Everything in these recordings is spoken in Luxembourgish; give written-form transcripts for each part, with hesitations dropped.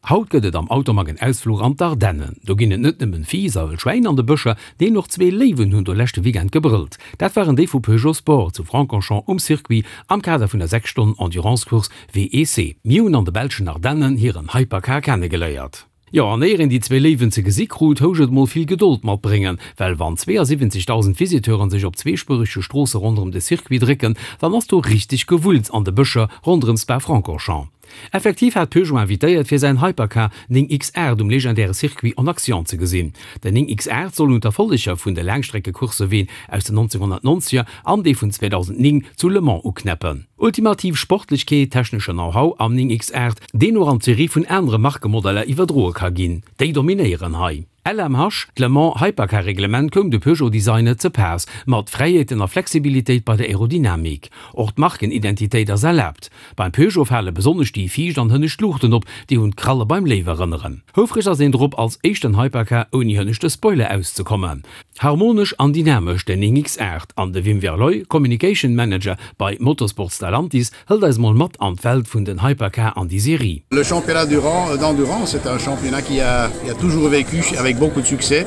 Haut gëtt et am Automag en Ausfluch an d'Ardennen. Do ginn et net nëmmen Fiiss a wëll Schwäin an de Bëscher, neen och zwee Léiwen hunn do leschte Weekend gebrëllt. Dat waren déi vu Peugeot Sport zu Francorchamps um Circuit am Kader vun der 6 Stonnen Endurance Course WEC. Mir hunn an de belschen Ardennen hiren Hypercar kennegeléiert. Jo, an éier een déi zwee Léiwen ze gesi krut, housch et mol vill Gedold matbréngen, well wann 72.000 Visiteuren sech op zweespuerege Stroosse ronderëm de Circuit drécken, dann ass do richteg Gewulls an de Bëscher ronderëm Spa-Francorchamps. Effektiv hat Peugeot invitéiert fir säin Hypercar 9 X8 um legendäre Circuit en Action ze gesinn. Den 9 X8 soll un d'Erfolleger vun de Laangstreckecoursse ween aus den 1990er an déi vun 2009 zu Le Mans uknäppen. Ultimativ Sportlechkeet, technesche Know-how am 9 X8, deen och an d'Serie vun anere Markemodeller iwwerdroe ka ginn, déi dominéieren hei. LMH, D'Le Mans Hypercar Reglement koum de Peugeot Designer ze paass, mat Fräiheeten a Flexibilitéit bei der Aerodynamik. Och d'Markenidentitéit ass erlaabt. Beim Peugeot fale besonnesch déi viischt an hënnescht Luuchten op, déi un d'Kralle beim Léiw erënneren. Houfreg ass een drop, als éischten Hypercar ouni hënneschte Spoiler auszekommen. Harmonesch an dynamesch, den 9X8 an de Wim Verlooy, Communication Manager bei Motorsport Stellantis, hëlt eis mol mat an d'Welt vun den Hypercar an déi Serie. Le championnat d'endurance est un championnat qui a, qui a toujours vécu avec beaucoup de succès.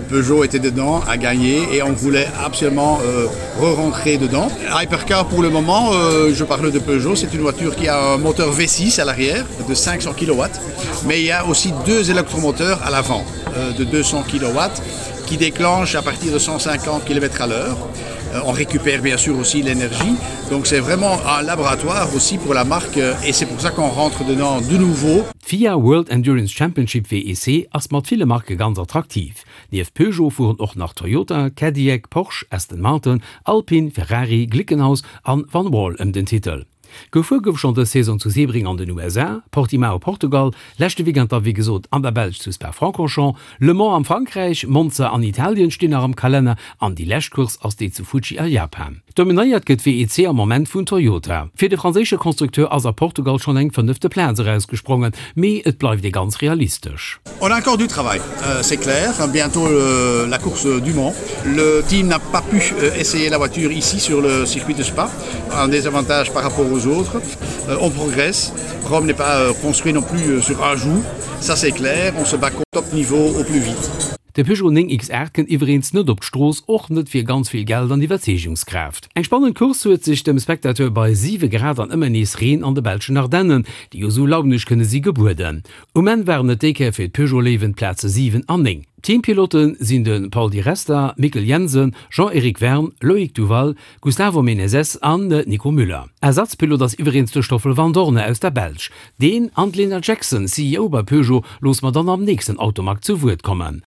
Peugeot était dedans, a gagné et on voulait absolument euh, re-rentrer dedans. Hypercar pour le moment, euh, je parle de Peugeot, c'est une voiture qui a un moteur V6 à l'arrière de 500 kW, mais il y a aussi deux électromoteurs à l'avant euh, de 200 kW qui déclenchent à partir de 150 km à l'heure. Euh, on récupère bien sûr aussi l'énergie. Donc c'est vraiment un laboratoire aussi pour la marque euh, et c'est pour ça qu'on rentre dedans de nouveau. D'FIA World Endurance Championship, WEC, ass mat ville Marke ganz attraktiv. Nieft Peugeot fueren och nach Toyota, Cadillac, Porsche, Aston Martin, Alpine, Ferrari, Glickenhaus an Van Wall ëm den Titel. Gefuer gouf schonn dës Saison zu Sebring an den USA, Portimao, Portugal, leschte Weekend da wéi gesot an der Belsch zu Spa-Francorchamps, Le Mans am Frankräich, Monza an Italien stinn nach am Kalenner an déi lescht Course ass déi zu Fuji a Japan. Dominéiert gëtt d'WEC am Moment vun Toyota. Fir de franséische Constructeur ass a Portugal schonn eng fënnefte Plaz erausgesprongen, mee et bleift ee ganz realistesch. On a encore du travail, c'est clair, bientôt la course du Mans. Le team n'a pas pu essayer la voiture ici sur le circuit de Spa. un désavantage par rapport aux autres. Euh, on progresse. Rome n'est pas euh, construit non plus euh, sur un jour. Ça c'est clair, on se bat au top niveau au plus vite. De Peugeot 9 X8 kënnt iwwereens net op d'Strooss, och net fir ganz vill Geld an Iwwerzeegungskraaft. Eng spannend Course huet sech dem Spectateur bei 7 Grad an ëmmer nees Reen an de belschen Ardennen, déi jo sou launeg kënne si, gebueden. Um Enn waren et déi Kéier fir d'Peugeot Léiwen d'Plaze 7 an 9. D'Teampilote sinn de Paul Di Resta, Mikkel Jensen, Jean-Eric Vergne, Loïc Duval, Gustavo Menezes an Nico Müller. Ersatzpilot ass iwwereens de Stoffel Vandoorne aus der Belsch. Deen an d'Lena Jackson, CEO bei Peugeot, loosse mer dann am nächsten Automag zu Wuert kommen.